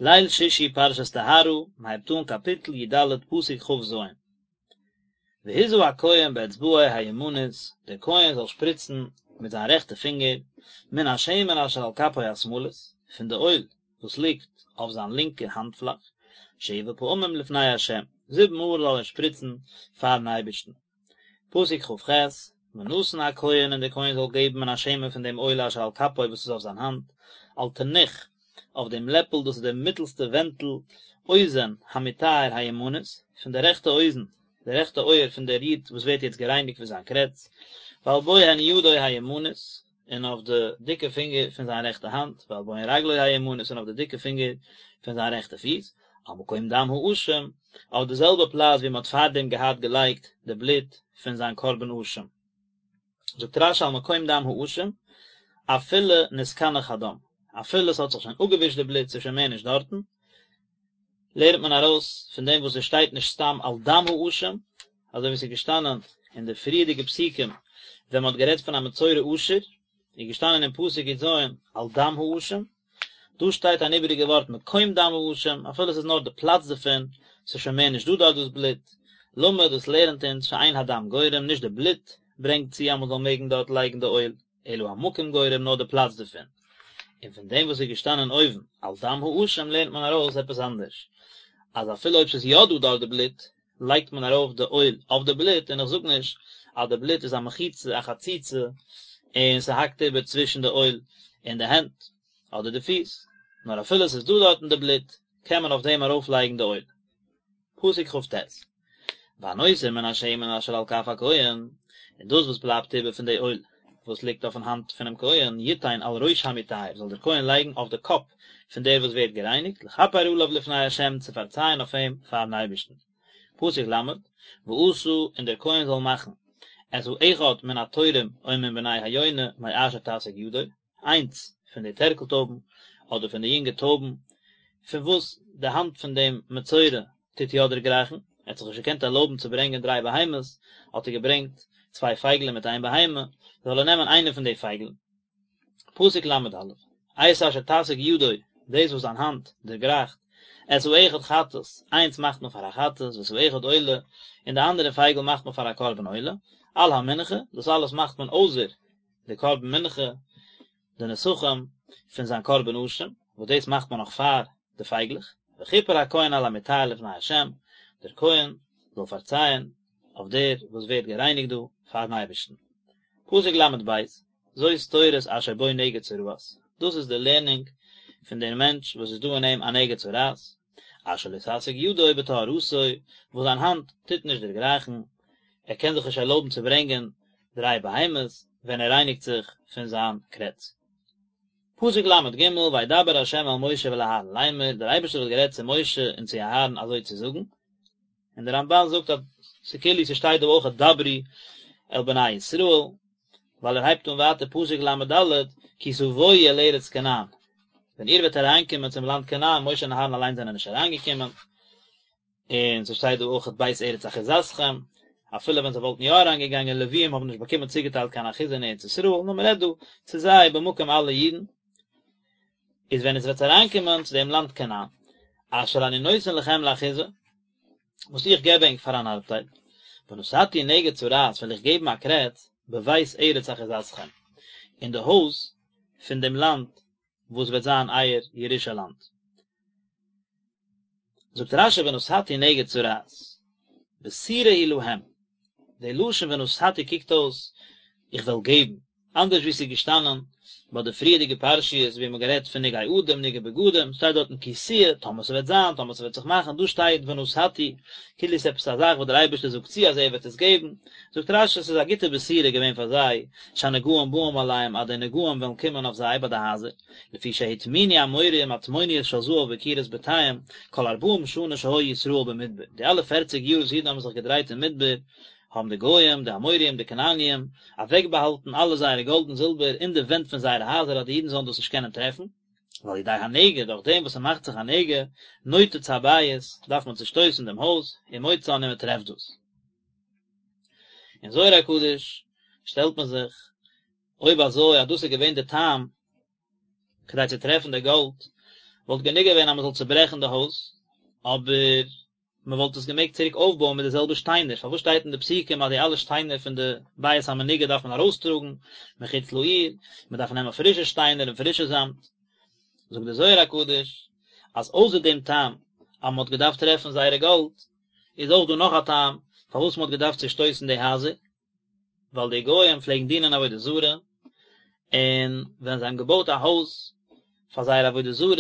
ליל שישי פרשת טהרה, מען הייבט אן קאפיטל י ד פסוק כ ז. והזה הכהן באצבעו הימנית, דער כהן זאל שפריצן מיט זיין רעכטע פינגער, מן השמן אשר על כפו השמאלית, פון די אויל וואס ליגט אויף זיין לינקע האנט-פלאך, שבע פעמים לפני ה', זיבן מאל זאל ער שפריצן פארן אייבערשטן. פסוק כ ח, ונתן הכהן און דער כהן זאל געבן מן השמן פון דעם אויל אשר על כפו וואס איז אויף זיין האנט, על תנוך, אויף דעם לעפל דאס איז דער מיטלסטע ווענטל, אוזן המטהר הימנית, פון די רעכטע אוזן, די רעכטע אויער פון דער איד וואס ווערט יעצט גערייניגט פון זיין קרעץ, ועל בוהן ידו הימנית, און אויף די דיקע פינגער פון זיין רעכטע האנט, ועל בוהן רגלו הימנית, און אויף די דיקע פינגער פון זיין רעכטע פיס, על מקום דם האשם, אויף די זעלבע פלאץ ווי מען האט פארדעם געהאט געלייגט די בלוט פון זיין קרבן אשם. זאגט רש י על מקום דם האשם, אפילו נתקנח הדם, אפילו עס האט זיך שוין אפגעווישט די בלוט, ס'איז שוין מער נישט דארטן, לערנט מען ארויס פון דעם וואס עס שטייט נישט סתם על דם האשם, אזוי ווי עס איז געשטאנען אין די פריערדיגע פסוקים ווען מען האט גערעדט פון א מצורע עשיר, איז געשטאנען אין פסוק י ז על דם האשם, דא שטייט אן איבעריגע ווארט מקום דם האשם, אפילו עס איז נאר די פלאץ דערפון, עס איז שוין מער נישט דא דארט דאס בלוט, למד דאס לערנט אונז שאין הדם גורם, נישט די בלוט ברענגט צו אז מען זאל מעגן דארט לייגן די אויל. אלא המקום גורם נאר די פלאץ דערפון, און פון דעם וואס איז געשטאנען אויבן על דם האשם לערנט מען ארויס עפעס אנדערש, אז אפילו אויב ס'איז יא דא דארט די בלוט, לייגט מען ארויף די אויל אויף די בלוט, און איך זאג נישט אז די בלוט איז א מחיצה א חציצה און ס'האקט איבער צווישן די אויל און די הענט אדער די פיס, נאר אפילו ס'איז דא דארטן די בלוט קען מען אויף דעם ארויפלייגן די אויל. פסוק כ ט, והנותר מן השמן אשר על כף הכהן, און דאס וואס בלייבט איבער פון די אויל וואס ליגט אויפן האנט פונעם כהן, יתן על ראש המטהר, זאל דער כהן לייגן אויף די קאפ פון דער וואס ווערט גערייניגט, לכפר עליו לפני ה', צו פארצייען אויף אים פארן אייבערשטן. פסוק ל, ועשה, און דער כהן זאל מאכן, את האחד מן התורים או מן בני היונה מאשר תשיג ידו, איינס פון די טערקל טויבן, אדער פון די יונגע טויבן, פון וואס די האנט פון דעם מצורע טוט יא דערגרייכן, ער האט זיך נישט געקענט ערלויבן צו ברענגען דריי בהמות, האט ער געברענגט צוויי פייגלען מיט איין בהמה, זאל ער נעמען איינע פון די פייגלען. פסוק ל א, את אשר תשיג ידו, דאס וואס זיין האנט דערגרייכט, את האחד חטאת, איינס מאכט מען פאר א חטאת, ואת האחד עולה, און די אנדערע פייגל מאכט מען פאר א קרבן עולה, על המנחה, דאס אלעס מאכט מען אויסער די קרבן מנחה, די נסכים פון זיין קרבן אשם, וואס דאס מאכט מען נאך פאר די פייגלעך, וכיפר הכהן על המטהר לפני ה', דער כהן זאל פארצייען אויף דער וואס ווערט גערייניגט דא פארן אייבערשטן. פסוק ל ב, זאת תורת אשר בו נגע צרעת, דאס איז די לערנונג פון דער מענטש וואס איז דא אין אים א נגע צרעת, אשר לא תשיג ידו בטהרתו, וואס זיין האנט טוט נישט דערגרייכן, ער קען זיך נישט ערלויבן צו ברענגען דריי בהמות ווען ער רייניגט זיך פון זיין קרעץ. פסוק ל ג, וידבר ה' אל משה ואל אהרן לאמר, דער אייבערשטער האט גערעדט צו משה און צו אהרן אזוי צו זאגן, און דער רמבן זאגט אז ס'כאילו ס'שטייט דא אויך דברו אל בני ישראל, ווייל ער הייבט אן ווייטער פסוק ל ד, כי תבואו אל ארץ כנען, ווען איר וועט אריינקומען צום לאנד כנען, משה און אהרן אליין זענען נישט אריינגעקומען, און ס'שטייט דא אויך בית ארץ אחוזתכם, אפילו ווען זיי וואלטן יא אריינגעגאנגען, לוויים האבן נישט באקומען צוגעטיילט קיין אחוזה אין ארץ ישראל, נאר מ'רעדט דא צו זיי במקום אלע אידן, איז ווען עטס וועט אריינקומען צו דעם לאנד כנען, אשר אני נותן לכם לאחוזה, וואס איך געב ענק פאר אן ארבטייל, ונתתי נגע צרעת וועל איך געבן א קרעץ בבית ארץ אחוזתכם, אין די הויז פון דעם לאנד וואס וועט זיין אייער ירושה לאנד. זאגט רשי ונתתי נגע צרעת, בשורה היא להם, די לשון ונתתי קוקט אויס איך וועל געבן, אנדערש ווי ס'איז געשטאנען ביי די פריערדיגע פרשיות ווי מ'האט גערעדט פון נגעי אדם נגעי בגדים, שטייט דארטן כי תהיה, טאמער ס'וועט זיין, טאמער ס'וועט זיך מאכן, דא שטייט ונתתי, כאילו ס'איז עפעס א זאך וואס דער אייבערשטער זאגט צו אז ער וועט עס געבן, זאגט רשי ס'איז א גוטע בשורה געווען פאר זיי, שהנגעים באים עליהם אז די נגעים וועלן קומען אויף זיי ביי די הייזער, לפי שהטמינו האמוריים מטמוניות של זהב בקירות בתיהם, כל ארבעים שנה שהיו ישראל במדבר, די אלע פערציג יאר וואס אידן האבן זיך געדרייט אין מדבר, האבן די גוים, די אמוריים, די כנעניים, אוועקבאהאלטן אלע זייערע גאלד און זילבער אין די ווענט פון זייערע הייזער אז די אידן זאלן דאס נישט קענען טרעפן. ועל ידי הנגע, דורך דעם וואס ס'מאכט זיך א נגע, נותץ הבית, דארף מען צושטויסן דעם הויז, ומוצאן און מען טרעפט דאס. אין זוהר הקדוש שטעלט מען זיך, אויב אזוי אז דאס איז געווען די טעם כדי צו טרעפן די גאלד. וואלט גענוג געווען אז מען זאל צוברעכן די הויז, אבער מען וואלט עס געמעגט צוריק אויפבויען מיט די זעלבע שטיינער, פארוואס שטייט אין די פסוקים אז די אלע שטיינער פון די בית המנוגע דארף מען ארויסטראגן מחוץ לעיר, מען דארף נעמען פרישע שטיינער און פרישע זאמד? זאגט דער זוהר הקדוש אז אויסער דעם טעם אז מען האט געדארפט טרעפן זייערע גאלד, איז אויך דא נאך א טעם פארוואס מען האט געדארפט צושטויסן די הייזער, ווייל די גוים פלעגן דינען עבודה זרה, און ווען זיי האבן געבויט א הויז פאר זייערע עבודה זרות,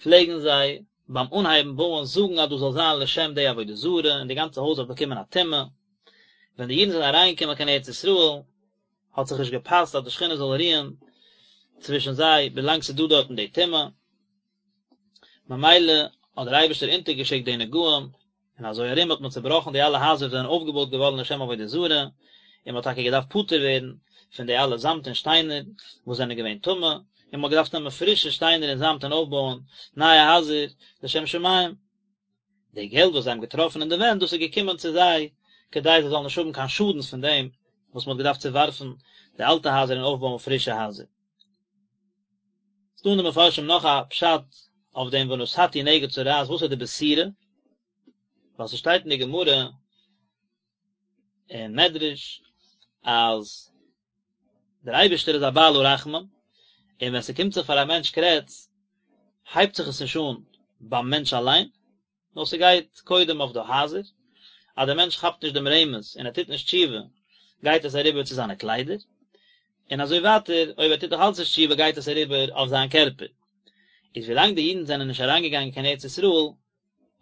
פלעגן זיי ביים אנהייבן בויען זאגן אז דאס זאל זיין לשם די עבודה זרה, און די גאנצע הויז האט באקומען א טומאה. ווען די אידן זענען אריינגעקומען קיין ארץ ישראל, האט זיך נישט געפאסט אז די שכינה זאל רוען צווישן זיי ווילאנג ס'איז דא דארטן די טומאה, ממילא האט דער אייבערשטער אונטערגעשיקט די נגעים, און אזוי ארום האט מען צעבראכן די אלע הייזער וואס זענען אויפגעבויט געווארן לשם עבודה זרה, און מען האט טאקע געדארפט פטור ווערן פון די אלע זאמד און שטיינער וואס זענען געווען טמא, און מען האט געדארפט נעמען פרישע שטיינער און זאמד און אויפבויען נייע הייזער לשם שמים. די געלט וואס זיי האבן געטראפן אין די ווענט, דאס איז געקומען צו זיי כדי זיי זאלן נישט האבן קיין שאדנס פון דעם וואס מען האט געדארפט צעווארפן די אלטע הייזער און אויפבויען פרישע הייזער. ס'דא אין די מפרשים נאך א פשט אויף דעם ונתתי נגע צרעת, וואס איז די בשורה? ווייל ס'שטייט אין די גמרא און מדרש אז דער אייבערשטער איז א בעל הרחמים, און ווען ס'קומט זיך פאר א מענטש קרעץ, הייבט זיך עס נישט אן ביים מענטש אליין, נאר ס'גייט קודם אויף די הייזער, אז דער מענטש כאפט נישט דעם רמז און ער טוט נישט תשובה, גייט עס אריבער צו זיינע קליידער, און אזוי ווייטער, אויב ער טוט נאך אלץ נישט תשובה גייט עס אריבער אויף זיין קערפער. איז ווילאנג די אידן זענען נישט אריינגעגאנגען קיין ארץ ישראל,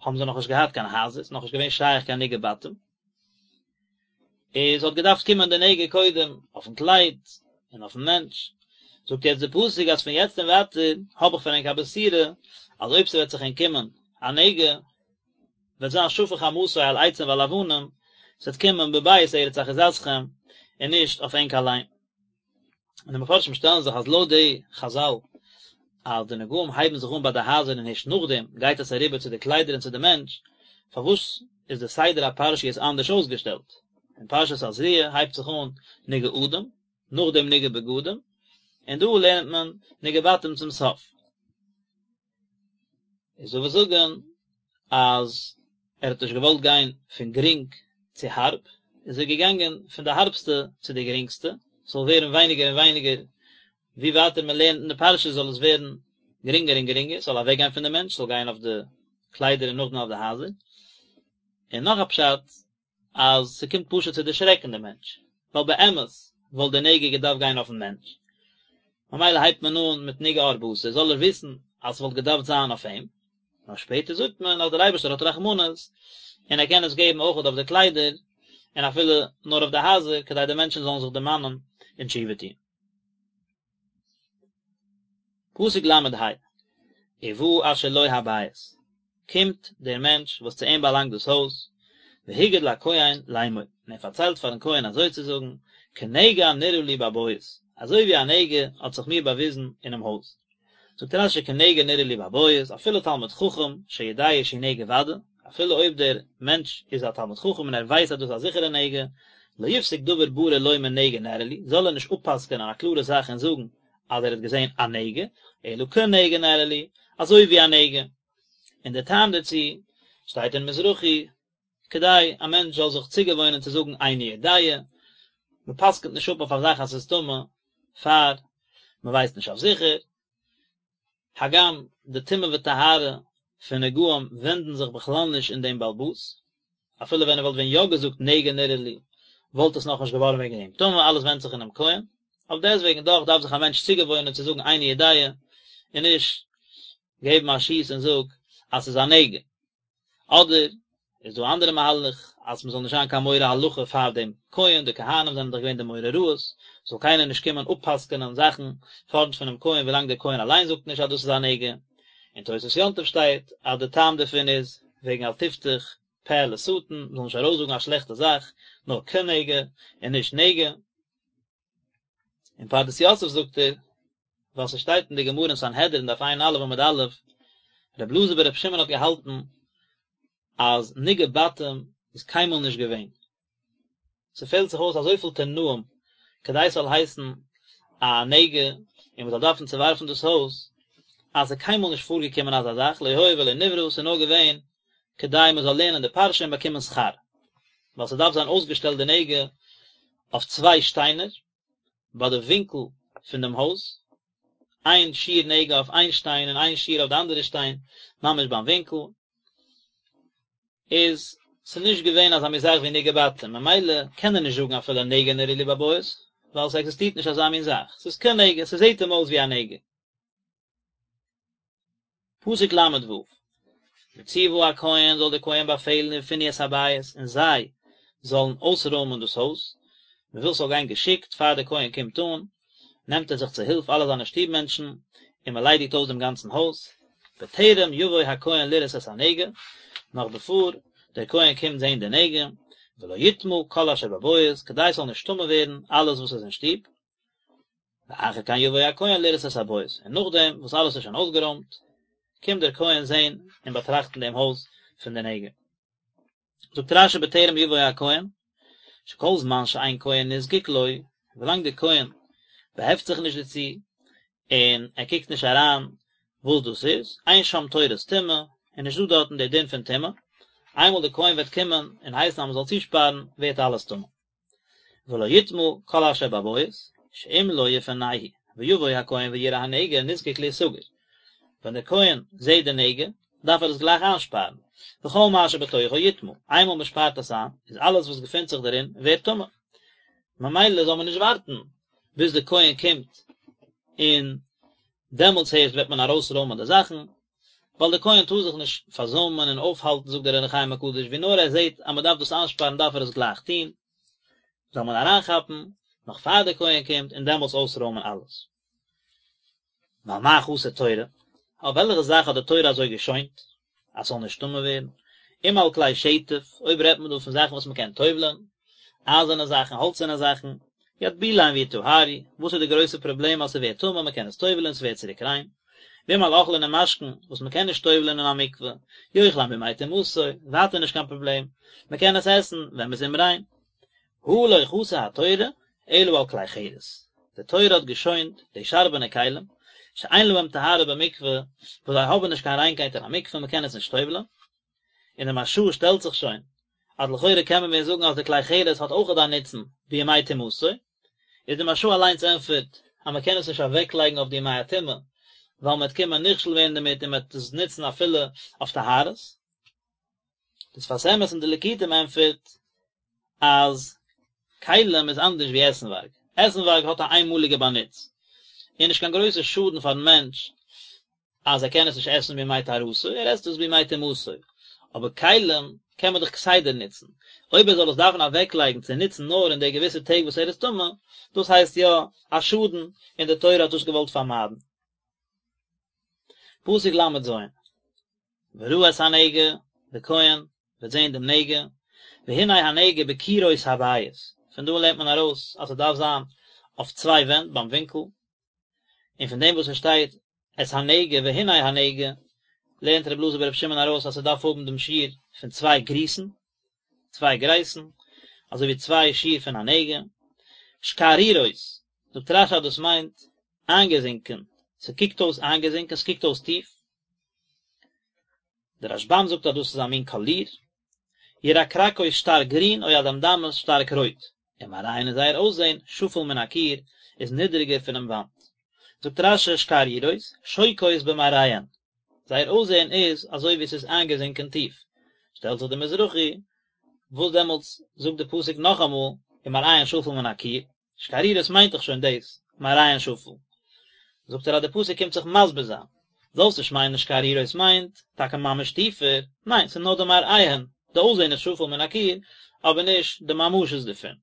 האבן זיי נאכנישט געהאט קיין הייזער, ס'איז נאכנישט געווען שייך קיין נגעי בתים, איז האט געדארפט קומען די נגע קודם אויפן קלייד און אויפן מענטש, זאגט יעצט די פסוק אז פון יעצט און ווייטער האב איך פאר ענק א בשורה אז אויב ס'וועט זיך ענק קומען א נגע וועט זיין שפך חמתו על עצים ועל אבנים, ס'וועט קומען בבית ארץ אחוזתכם און נישט אויף ענק אליין. און די מפרשים שטעלן זיך אז לויט די חזל אז די נגעים הייבן זיך אן ביי די הייזער און הערשט נאכדעם גייט עס אריבער צו די קליידער און צו די מענטש, פארוואס איז די סדר הפרשיות אנדערש אויסגעשטעלט? אין פרשת תזריע הייבט זיך אן נגעי אדם, נאכדעם נגעי בגדים, און דא לערנט מען נגעי בתים צום סוף. איז דא וואס זאגן אז ער האט נישט געוואלט גיין פון גרינג צו הארב, איז ער געגאנגען פון די הארבסטע צו די גרינגסטע, ס'זאל ווערן ווייניגער און ווייניגער, ווי ווייטער מען לערנט אין די פרשה זאל עס ווערן גרינגער און גרינגער, ס'זאל אוועק גיין פון די מענטש, ס'זאל גיין אויף די קליידער און נאכדעם אויף די הייזער. און נאך א פשט, אז ס'קומט פשוט צו דערשרעקן די מענטש, ווייל באמת וואלט די נגע געדארפט גיין אויפן מענטש, ממילא הייבט מען אן מיט נגעי עור בשר, זאל ער וויסן אז ס'וואלט געדארפט זיין אויף אים, נאר שפעטער זאגט מען אז דער אייבערשטער האט רחמנות און ער קען עס געבן אויכעט אויף די קליידער, און אפילו נאר אויף די הייזער, כדי די מענטשן זאלן זיך דערמאנען און תשובה טון. פסוק ל"ה, ובא אשר לו הבית, קומט דער מענטש וואס צו אים באלאנגט דאס הויז, והגיד לכהן לאמור, און ער פארציילט פארן כהן אזוי צו זאגן, כנגע נראה לי בבית, אזוי ווי א נגע האט זיך מיר באוויזן אינעם הויז. זאגט רש"י כנגע נראה לי בבית, אפילו תלמיד חכם שיודע שהוא נגע ודאי, אפילו אויב דער מענטש איז א תלמיד חכם און ער ווייסט אז דאס איז א זיכערע נגע, לא יפסוק דבר ברור לומר נגע נראה לי, זאל ער נישט אפ'פסק'ענען א קלארע זאך און זאגן אז ער האט געזען א נגע, אלא כנגע נראה לי, אזוי ווי א נגע. און דער טעם דערצו שטייט אין מזרחי, כדי א מענטש זאל זיך צוגעוואוינען צו זאגן איני יודע, מען פסק'נט נישט אפ אויף א זאך אז ס'איז טמא פאר מען ווייסט נישט אויף זיכער, הגם די טומאה וטהרה פון נגעים ווענדן זיך בכלל נישט אין דעם בעל הבית, אפילו ווען ער וואלט ווען יא געזאגט נגע נראה לי וואלט עס נאכנישט געווארן וועגן דעם טמא, אלעס ווענדט זיך אינעם כהן, אויף דעסטוועגן דאך דארף זיך א מענטש צוגעוואוינען צו זאגן איני יודע און נישט געבן א שיס און זאג אז ס'איז א נגע. אדער איז דא א אנדערע מהלך אז מ'זאל נישט זיין קיין מורה הלכה פאר דעם כהן, די כהנים זענען דאך געווען די מורה הוראות, זאל קיינער נישט קומען אפ'פסק'ענען זאכן פארנט פונעם כהן ווילאנג דער כהן אליין זאגט נישט אז דאס איז א נגע. אין תוספות יום טוב שטייט אז די טעם דערפון איז וועגן אל תפתח פה לשטן, מ'זאל נישט ארויסזאגן א שלעכטע זאך, נאר כנגע און נישט נגע. אין פרדס יוסף זאגט ער, ווייל ס'שטייט אין די גמרא אין סנהדרין דף ע"א עמוד א', רבי אלעזר ברבי שמעון האט געהאלטן אז נגעי בתים איז קיינמאל נישט געווען. ס'פעלט זיך אויס אזויפיל תנאים כדי ס'זאל הייסן א נגע און מ'זאל דארפן צעווארפן דאס הויז. אז ס'איז קיינמאל נישט פארגעקומען אזא זאך, לא היה ולא נברא, ס'איז נאר געווען כדי מ'זאל לערנען די פרשה און באקומען שכר, ווייל ס'דארף זיין אויסגעשטעלט די נגע אויף צוויי שטיינער ביי די ווינקל פון דעם הויז, איין שיעור נגע אויף איין שטיין און איין שיעור אויף די אנדערע שטיין, ממש ביים ווינקל. איז ס'נישט געווען אזא מין זאך ווי נגעי בתים, ממילא קען ער נישט זאגן אפילו נגע נראה לי בבית, ווייל ס'עקזיסטירט נישט אזא מין זאך, ס'איז כנגע, ס'זעט אים אויס ווי א נגע. פסוק ל ו, וצוה הכהן זאל דער כהן באפעלן ופנו את הבית און זיי זאלן אויסרוימען דאס הויז, מ'וויל ס'זאל גיין געשיקט, פאר דער כהן קומט אן, נעמט ער זיך צו הילף אלע זיינע שטוב מענטשן, און מען ליידיגט אויס דעם גאנצן הויז, בטרם יבוא הכהן לראות את הנגע, נאך בעפאר דער כהן קומט זען די נגע, ולא יטמא כל אשר בבית, כדי ס'זאל נישט טמא ווערן אלעס וואס איז אין שטוב, ואחר כן יבוא הכהן לראות את הבית, און נאכדעם וואס אלעס איז שוין אויסגערוימט, קומט דער כהן זען און באטראכטן דעם הויז פון די נגע. זאגט רשי בטרם יבוא הכהן, שכל זמן שאין כהן נזקק לו, ווילאנג דער כהן באהעפט זיך נישט דערצו, און ער קוקט נישט אריין וואס דאס איז, אין שם תורת טומאה, איז נישט דא דארטן דער דין פון טומאה, איינמאל דער כהן וועט קומען און הייסן אז מען זאל צושפארן, ווערט אלעס טמא. ולא יטמא כל אשר בבית, שאם לא יפנהו, ויבוא הכהן ויראה הנגע נזקק להסגר. ווען דער כהן זעט די נגע, דארף ער עס גלייך איינשפארן, וכל מה שבתוכו יטמא, איינמאל מען שפארט עס איין, איז אלעס וואס געפינט זיך דערין ווערט טמא. ממילא זאל מען נישט ווארטן ביז דער כהן קומט און דעמאלטס הערשט וועט מען ארויסרוימען די זאכן, ווייל דער כהן טאר זיך נישט פארזוימען און אויפהאלטן זאגט דער אור החיים הקדוש, ווי נאר ער זעט אז מען דארף דאס איינשפארן דארף ער עס גלייך טון, זאל מען אריינכאפן נאך פאר דער כהן קומט און דעמאלטס אויסרוימען אלעס. ועל מה חסה תורה? אויף וועלכע זאך האט די תורה אזוי געשוינט אז ס'זאל נישט טמא ווערן? אם על כלי שטף, אויב רעדט מען דא פון זאכן וואס מ'קען טובל'ען, אייזערנע זאכן, האלצערנע זאכן, יטבילם ויטהרו, וואס איז די גרויסע פראבלעם אז ס'ווערט טמא, מ'קען עס טובל'ען, ס'ווערט צוריק ריין. ואם על אוכלין ומשקין, וואס מ'קען נישט טובל'ען אין א מקווה, יאכלם בימי טומאתו, ווייטער נישט קיין פראבלעם, מ'קען עס עסן ווען מ'איז אומריין. הא לא חסה התורה אלא על כלי חרס, די תורה האט געשוינט די שארבענע כלים, שאין להם טהרה במקווה, וואס זיי האבן נישט קיין ריינקייט אין א מקווה, מען קען עס נישט טובל'ען. און די מהרש"א שטעלט זיך שוין, אז לכאורה קען מען ווען זאגן אז די כלי חרס האט אויכעט א נוצן בימי טומאתו, איז די מהרש"א אליינס ענטפערט אז מען קען עס נישט אוועקלייגן אויף די ימי הטומאה, ווייל מען וועט קומען נכשל ווערן דערמיט און מען וועט עס נוצן אפילו אויף טהרות. די שפת אמת אין די ליקוטים ענטפערט אז כלים איז אנדערש ווי עסנווארג, עסנווארג האט א איינמאליגע באנוץ, און נישט קיין גרויסע שאדן פארן מענטש אז ער קען עס נישט עסן בימי טהרתו, ער עסט עס בימי טומאתו, אבער כלים קען מען דאך כסדר נוצן, אויב ער זאל עס דארפן אוועקלייגן צו נוצן נאר אין די געוויסע טעג וואס ער איז טמא, דאס הייסט יא א שאדן, און די תורה האט דאס געוואלט פארמיידן. פסוק ל"ז, וראה את הנגע, דער כהן וועט זען דעם נגע, והנה הנגע בקירות הבית, פון דא לערנט מען ארויס אז ס'דארף זיין אויף צוויי ווענט ביים ווינקל, און פון דעם וואס עס שטייט את הנגע והנה הנגע, לערנט רבי אלעזר ברבי שמעון ארויס אז ס'דארף האבן דעם שיעור פון צוויי גריסן, צוויי גרייסן, אזוי ווי צוויי שיעור פון א נגע, שקערורות, זאגט רש"י אז דאס מיינט איינגעזינקען, ס'קוקט אויס איינגעזינקען, ס'קוקט אויס טיף, דער רשב"ם זאגט אז דאס איז א מין קאליר, ירקרקות שטארק גרין או אדמדמות שטארק רויט, ומראיהן און זייער אויסזען, שפל מן הקיר, איז נידריגער פונעם וואנט. זאגט רש"י שקערורות, שוקעות במראיהן, זייער אויסזען איז אזוי ווי עס איז איינגעזינקען טיף. שטעלט זיך דער מזרחי, וואס דעמאלטס זאגט דער פסוק נאכאמאל, ומראיהן שפל מן הקיר, שקערורות מיינט דאך שוין דאס, מראיהן שפל. זאגט ער אז די פסוק קומט זיך מסביר זיין. זאלסט נישט מיינען שקערורות מיינט טאקע ממש טיפער, ניין ס'איז נאר די מראיהן, די אויסזען איז שפל מן הקיר, אבער נישט די ממשות דערפון.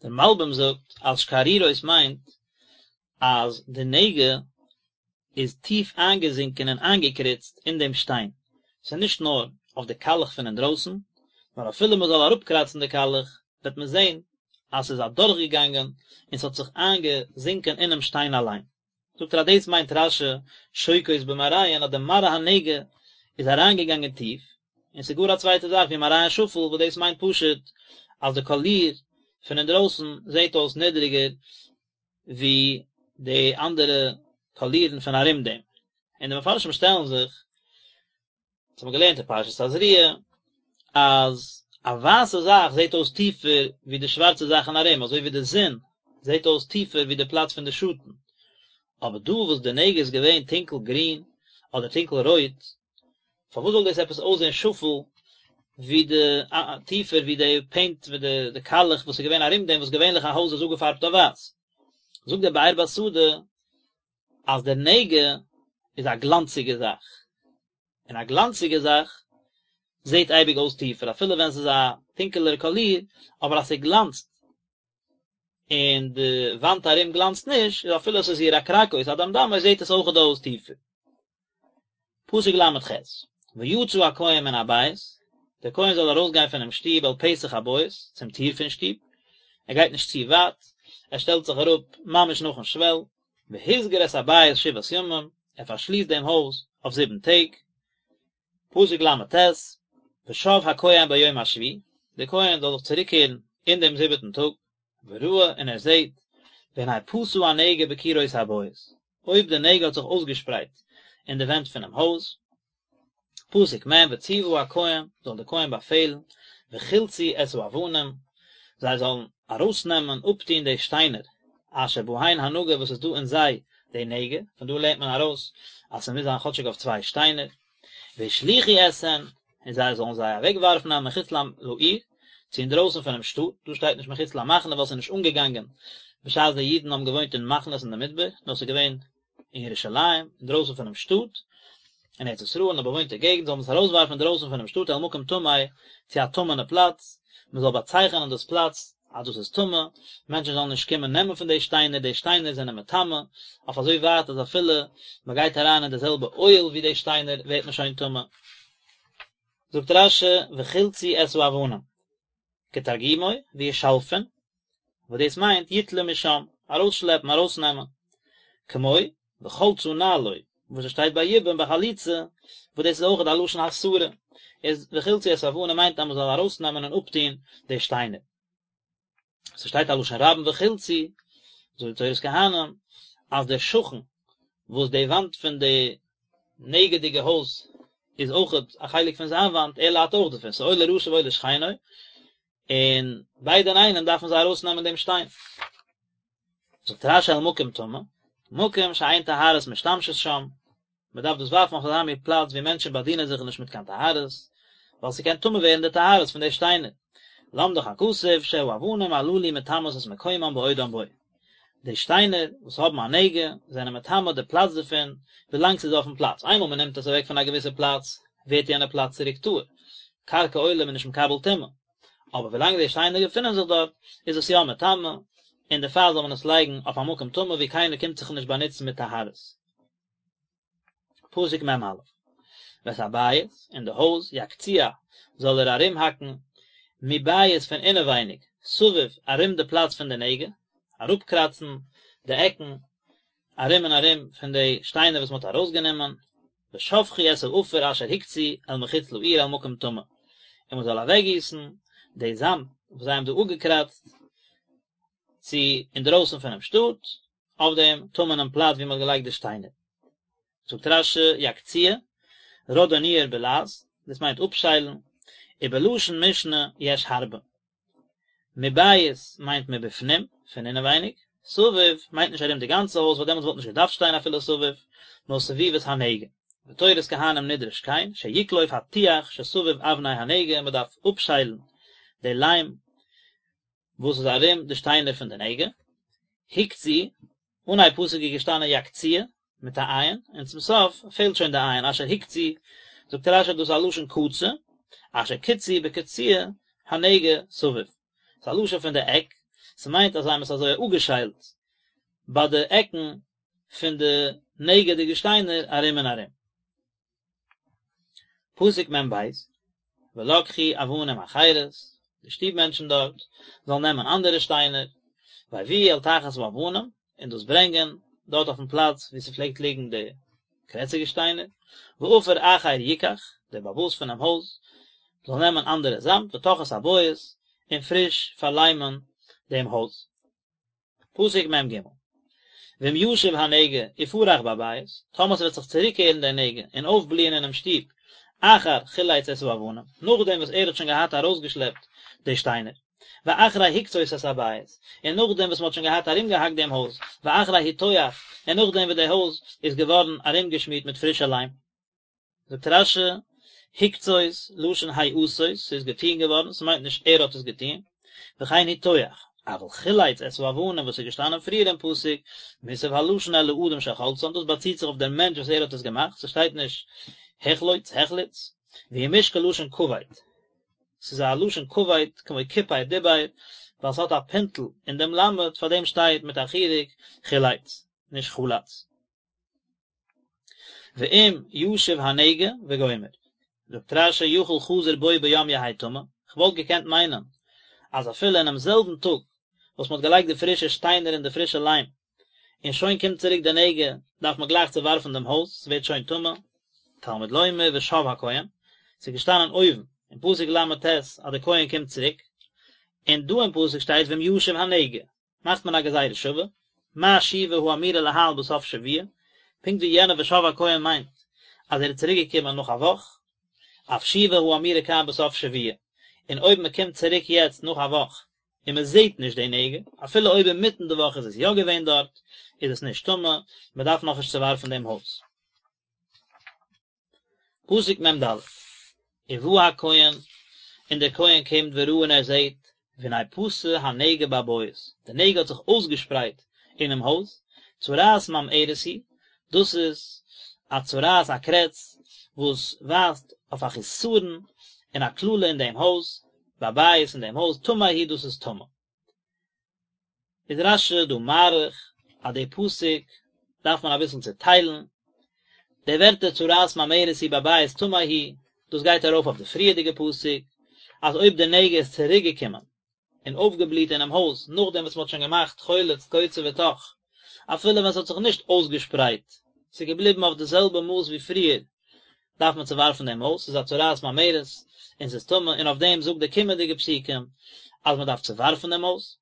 דער מלבי"ם זאגט אז שקערורות מיינט אז די נגע איז טיף איינגעזינקען און איינגעקריצט אין דעם שטיין, ס'איז נישט נאר אויף די קאלעך פון אינדרויסן, נאר אפילו מען זאל אראפקראצן די קאלעך וועט מען זען אז ס'איז אדורכגעגאנגען און ס'האט זיך איינגעזינקען אינעם שטיין אליין. זאגט ער אז דאס מיינט רש"י שוקעות במראיהן אז די מראה הנגע איז אריינגעגאנגען טיף, און ס'איז גאר א צווייטע זאך ווי מראיהן שפל וואס דאס מיינט פשוט אז די קאליר פון אינדרויסן זעט אויס נידריגער ווי די אנדערע קאלירן פון ארום דעם. און די מפרשים שטעלן זיך, דאס האבן מיר געלערנט אין פרשת תזריע, אז א ווייסע זאך זעט אויס טיפער ווי די שווארצע זאכן ארום, אזוי ווי די זון זעט אויס טיפער ווי די פלאץ פון די שאטן. אבער דא וואס די נגע איז געווען טונקל גרין אדער טונקל רויט, פארוואס זאל דאס עפעס אויסזען שפל ווי די טיפער ווי די פעינט ווי די די קאלעך וואס איז געווען ארום דעם וואס געווענליך א הויז איז אפגעפארבט אויף ווייס. זאגט דער באר בשדה אז דער נגע איז א גלאנציגע זאך, און א גלאנציגע זאך זעט אייביג אויס טיפער אפילו ווען ס'איז א טונקעלער קאליר, אבער אז ס'גלאנצט און די וואנט ארום גלאנצט נישט, איז אפילו עס איז ירקרקות אדמדמות זעט עס אויכעט אויס טיפער. פסוק ל"ח, ויצא הכהן מן הבית, דער כהן זאל ארויסגיין פונעם שטוב אל פתח הבית, צום טיר פון שטוב, ער גייט נישט צו ווייט, ער שטעלט זיך אראפ ממש נאכן שוועל, והסגיר את הבית שבעת ימים, ער פארשליסט דעם הויז אויף זיבן טעג. פסוק ל"ט, ושב הכהן ביום השביעי, דער כהן זאל זיך צוריקקערן אין דעם זיבעטן טאג, וראה און ער זעט, והנה פשה הנגע בקירות הבית, אויב די נגע האט זיך אויסגעשפרייט אין די ווענט פונעם הויז, פסוק מ', וצוה הכהן, זאל דער כהן באפעלן, וחלצו את האבנים, זיי זאלן ארויסנעמען, אפטון די שטיינער, אשר בהן הנגע וואס איז דא אין זיי די נגע, פון דא לערנט מען ארויס אז ס'מוז זיין כאטשיג אויף צוויי שטיינער, והשליכו אתהן, און זיי זאלן זיי אוועקווארפן אל מחוץ לעיר, צו אינדרויסן פונעם שטאט, דא שטייט נישט מחוץ למחנה ווייל ס'איז נישט אנגעגאנגען בשעת די אידן האבן געוואוינט אין מחנות אין די מדבר, נאר ס'איז געווען אין ירושלים, אינדרויסן פונעם שטאט, אין ארץ ישראל אין א באוואוינטע געגנט, זאל מען עס ארויסווארפן אינדרויסן פונעם שטאט אל מקום טמא, צו א טמא'נע פלאץ, מען זאל באצייכענען דאס פלאץ אז דאס איז טמא, מענטשן זאלן נישט קומען נעמען פון די שטיינער, די שטיינער זענען מטמא, אויף אזוי ווייט אז אפילו מען גייט אריין אין די זעלבע אוהל ווי די שטיינער ווערט מען שוין טמא. זאגט רש"י וחלצו את האבנים, כתרגומו וישלפון, וואס דאס מיינט יטלו משם, ארויסשלעפן, ארויסנעמען, כמו וחלצה נעלו, וואס עס שטייט ביי יבום ביי חליצה, וואס דאס איז אויכעט א לשון הסרה, איז וחלצו את האבנים מיינט אז מען זאל ארויסנעמען און אפטון די שטיינער. ס'שטייט א לשון רבים וחלצו, זאגט די תורת כהנים, אז דער שכן וואס די וואנט פון די נגע'דיגע הויז איז אויכעט א חלק פון זיין וואנט, ער ליידט אויך דערפון, ס'איז אוי לרשע ואוי לשכנו, און ביידע אינאיינעם דארפן זיי ארויסנעמען דעם שטיין. זאגט רש"י אל מקום טמא, מקום שאין טהרות משתמשות שם, מען דארף דאס ווארפן אויף אזא מין פלאץ ווי מענטשן באדינען זיך נישט מיט קיין טהרות, ווייל ס'קען טמא ווערן די טהרות פון די שטיינער. למדך הכתוב שהאבנים הללו מטמאות את מקומם בעודם בו. די שטיינער וואס האבן א נגע זענען מטמא די פלאץ דערפון ווילאנג ס'איז אויפן פלאץ, איינמאל מען נעמט עס אוועק פון א געוויסע פלאץ ווערט יענע פלאץ צוריק טהור, קרקע עולם איז נישט מקבל טומאה. אבער ווילאנג די שטיינער געפינען זיך דארט איז עס יא מטמא, און דערפאר זאל מען עס לייגן אויף א מקום טמא ווי קיינער קומט זיך נישט באנוצן מיט טהרות. פסוק מ"א, ואת הבית, און די הויז, יקציע, זאל ער ארומהאקן, מבית פון אינעווייניג, סביב, ארום די פלאץ פון די נגע, אראפקראצן די עקן, ארום און ארום פון די שטיינער וואס מען האט ארויסגענומען, ושפכו את העפר אשר הקצו אל מחוץ לעיר אל מקום טמא, און מען זאל אוועקגיסן די זאמד וואס זיי האבן דא אפגעקראצט צו אינדרויסן פונעם שטאט, אויף דעם טמא'נעם פלאץ וואו מען האט געלייגט די שטיינער. זאגט רש"י יקציע, רודוניער בלע"ז, דאס מיינט אפשיילן, ובלשון משנה יש הרבה. מבית מיינט מבפנים, פון אינעווייניג, סביב מיינט נישט ארום די גאנצע הויז ווייל דעמאלטס וואלט נישט געדארפט שטיין אפילו סביב, נאר סביבות הנגע. בתורת כהנים נדרש כן, שיקלוף הטיח שסביב אבני הנגע, מען דארף אפשיילן די ליים וואס איז ארום די שטיינער פון די נגע, הקצו, אנהייב פסוק איז געשטאנען יקציע, מיט א עין, און צום סוף פעלט שוין די עין, אשר הקצו, זאגט רש"י דאס איז א לשון קצה, אשר קצו בקציע הנגע סביב, ס'איז א לשון פון די עק, ס'מיינט אז זיי האבן עס אזוי אפגעשיילט ביי די עקן פון די נגע'דיגע שטיינער ארום און ארום. פסוק מ"ב, ולקחו אבנים אחרות, די שטוב מענטשן דארט זאלן נעמען אנדערע שטיינער, והביאו אל תחת האבנים, און דאס ברענגען דארט אויפן פלאץ וואו ס'פלעגט ליגן די קרעציגע שטיינער, ועפר אחר יקח, דער בעל הבית פונעם הויז זאל נעמען אנדערע זאמד, וטח את הבית, און פריש פארליימען דעם הויז. פסוק מ"ג. ואם ישוב הנגע ופרח בבית, טאמער ס'וועט זיך צוריקקערן דער נגע און אויפבליען אינעם שטוב, אחר חילץ את האבנים, נאכדעם וואס ער האט שוין געהאט ארויסגעשלעפט די שטיינער, ואחרי הקצות את הבית, און נאכדעם וואס מ'האט שוין געהאט ארומגעהאקט דעם הויז, ואחרי הטוח, און נאכדעם וואס די הויז איז געווארן ארומגעשמירט מיט פרישע ליים. זאגט רש"י, הקצות, לשון העשות, ס'איז געטוהן געווארן, ס'מיינט נישט ער האט עס געטוהן, וכן הטוח, אבל חילץ את האבנים וואס איז געשטאנען פריער אין פסוק, מוסב הלשון אל האדם שחלצן, דאס באציט זיך אויף דער מענטש וואס ער האט עס געמאכט, ס'שטייט נישט החלוץ, החליץ, והוא מושכל לשון כבד, ס'איז א לשון כבד כמו כיפר דיבר, ווייל ס'האט א פינטל אין דעם למד, פארדעם שטייט מיט א חיריק חילץ, נישט חלץ. ואם ישוב הנגע וגומר. זאגט רש"י יכול חזר בו ביום יהא טמא, כ'וואלט געקענט מיינען אז אפילו אינעם זעלבן טאג וואס מ'האט געלייגט די פרישע שטיינער און די פרישע ליים, און שוין קומט צוריק די נגע, דארף מען גלייך צעווארפן דעם הויז, ס'ווערט שוין טמא. תלמוד לומר ושב הכהן, ס'איז געשטאנען אויבן אין פסוק ל"ט אז דער כהן קומט צוריק, און דא אין פסוק שטייט ואם ישוב הנגע, מאכט מען א גזירה שווה, מה שיבה האמורה להלן בסוף שבוע, פונקט ווי יענע ושב הכהן מיינט אז ער איז צוריק געקומען נאך א וואך, אף שיבה האמורה כאן בסוף שבוע, און אויב מען קומט צוריק יעצט נאך א וואך און מען זעט נישט די נגע, אפילו אויב אינמיטן די וואך איז עס יא געווען דארט, איז עס נישט טמא, מען דארף נאכנישט צעווארפן דעם הויז. פסוק מ"ד, ובא הכהן, און דער כהן קומט וראה און ער זעט, והנה פשה הנגע בבית, די נגע האט זיך אויסגעשפרייט אינעם הויז, צרעת ממארת היא, דאס איז א צרעת א קרעץ וואס ווייזט אויף א חסרון און א קללה אין דעם הויז, בבית אין דעם הויז, טמא הוא דאס איז טמא. איז רש"י דא מאריך אז די פסוק דארף מען אביסל צוטיילן, די ווערטער צרעת ממארת היא בבית טמא הוא, דאס גייט ארויף אויף די פריערדיגע פסוק, אז אויב די נגע איז צוריק געקומען און אויפגעבליט אינעם הויז נאכדעם וואס מען האט שוין געמאכט חולץ קוצה וטח, אפילו ווען ס'האט זיך נישט אויסגעשפרייט, ס'איז געבליבן אויף די זעלבע מאס ווי פריער, דארף מען צעווארפן דעם הויז, ס'איז א צרעת ממארת און ס'איז טמא, און אויף דעם זאגט די קומענדיגע פסוקים אז מען דארף צעווארפן דעם הויז.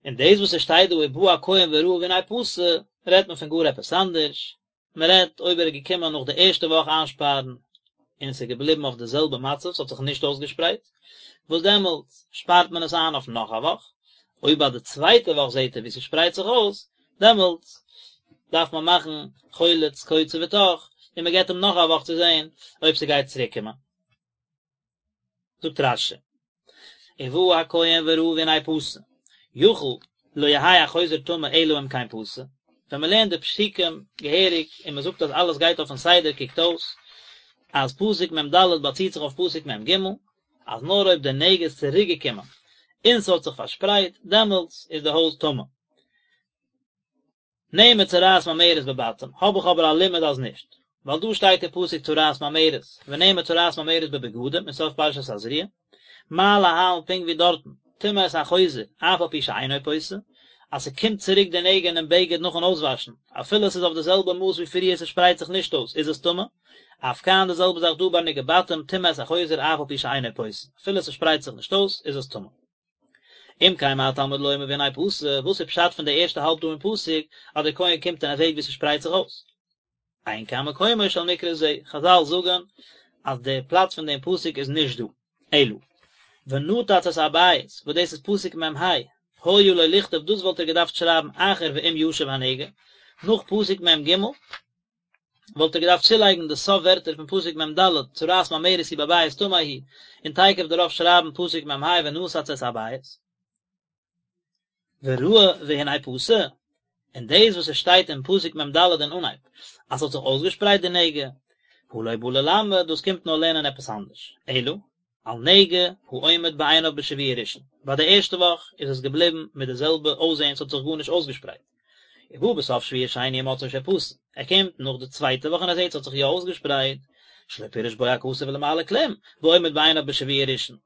און דאס וואס עס שטייט דא ובא הכהן וראה והנה פשה, רעדט מען פון גאר עפעס אנדערש, מען רעדט אויב ער איז געקומען נאך די ערשטע וואך איינשפארן און עס איז געבליבן אויף די זעלבע מצב, ס'האט זיך נישט אויסגעשפרייט, וואס דעמאלטס שפארט מען עס איין אויף נאך א וואך, אויב ביי די צווייטע וואך זעט ער ווי ס'שפרייט זיך אויס, דעמאלטס דארף מען מאכן חולץ קוצה וטח, און מען געבט אים נאך א וואך צו זען אויב ס'גייט צוריק קומען. זאגט רש"י, ובא הכהן וראה והנה פשה, יכול לא יהא החוזר טמא אלא אם כן פשה, ווען מען לערנט די פסוקים געהעריג און מען זאגט אז אלעס גייט אויפן סדר קוקט אויס אז פסוק מ"ד באציט זיך אויף פסוק מ"ג, אז נאר אויב די נגע איז צוריק געקומען און ס'האט זיך פארשפרייט דעמאלטס איז די הויז טמא. נאמר צרעת ממארת בבתים, האב איך אבער א לימוד אז נישט, ווייל דא שטייט אין פסוק צרעת ממארת, ונאמר צרעת ממארת בבגדים אין סוף פרשת תזריע, מה להלן פונקט ווי דארטן, טמא את החוזר, אף על פי שאינו פושה, אז ס'קומט צוריק די נגע אינעם בגד נאכן אויסוואשן, אפילו ס'איז אויף די זעלבע מאס ווי פריער ס'שפרייט זיך נישט אויס, איז עס טמא, אף כאן די זעלבע זאך דא ביי נגעי בתים טמא את החוזר אף על פי שאינו פושה, אפילו ס'שפרייט זיך נישט אויס, איז עס טמא. אם כן מה תלמוד לומר והנה פשה, וואס איז פשט פון די ערשטע האלב דא אין פסוק אז דער כהן קומט און ער זעט ווי ס'שפרייט זיך אויס? אין כאן מקומו של מקרא זה, חזל זאגן אז די פלאץ פון דעם פסוק איז נישט דא, אלא ונתץ את הבית, וואס דאס איז פסוק מ"ה, היה לו לכתוב דאס וואלט ער געדארפט שרייבן אחר ואם ישוב הנגע, נאך פסוק מ"ג, וואלט ער געדארפט צולייגן די סוף ווערטער פון פסוק מ"ד, צרעת ממארת היא בבית טמא הוא, און תיכף דערויף שרייבן פסוק מ"ה ונתץ את הבית. וראה והנה פשה, און דאס וואס עס שטייט אין פסוק מ"ד אין אנהייב, אז ס'האט זיך אויסגעשפרייט די נגע, הא לא בא ללמד, דאס קומט נאר לערנען עפעס אנדערש, אלא, על נגע העומד בעיניו בשבוע ראשון, ביי די ערשטע וואך איז עס געבליבן מיט די זעלבע אויסזען ס'האט זיך גארנישט אויסגעשפרייט, ובא בסוף שבוע שני ומצאו שפשה, ער קומט נאך די צווייטע וואך און ער זעט ס'האט זיך יא אויסגעשפרייט, שלא פירש בו הכתוב למעלה כלום, בעומד בעיניו בשבוע ראשון.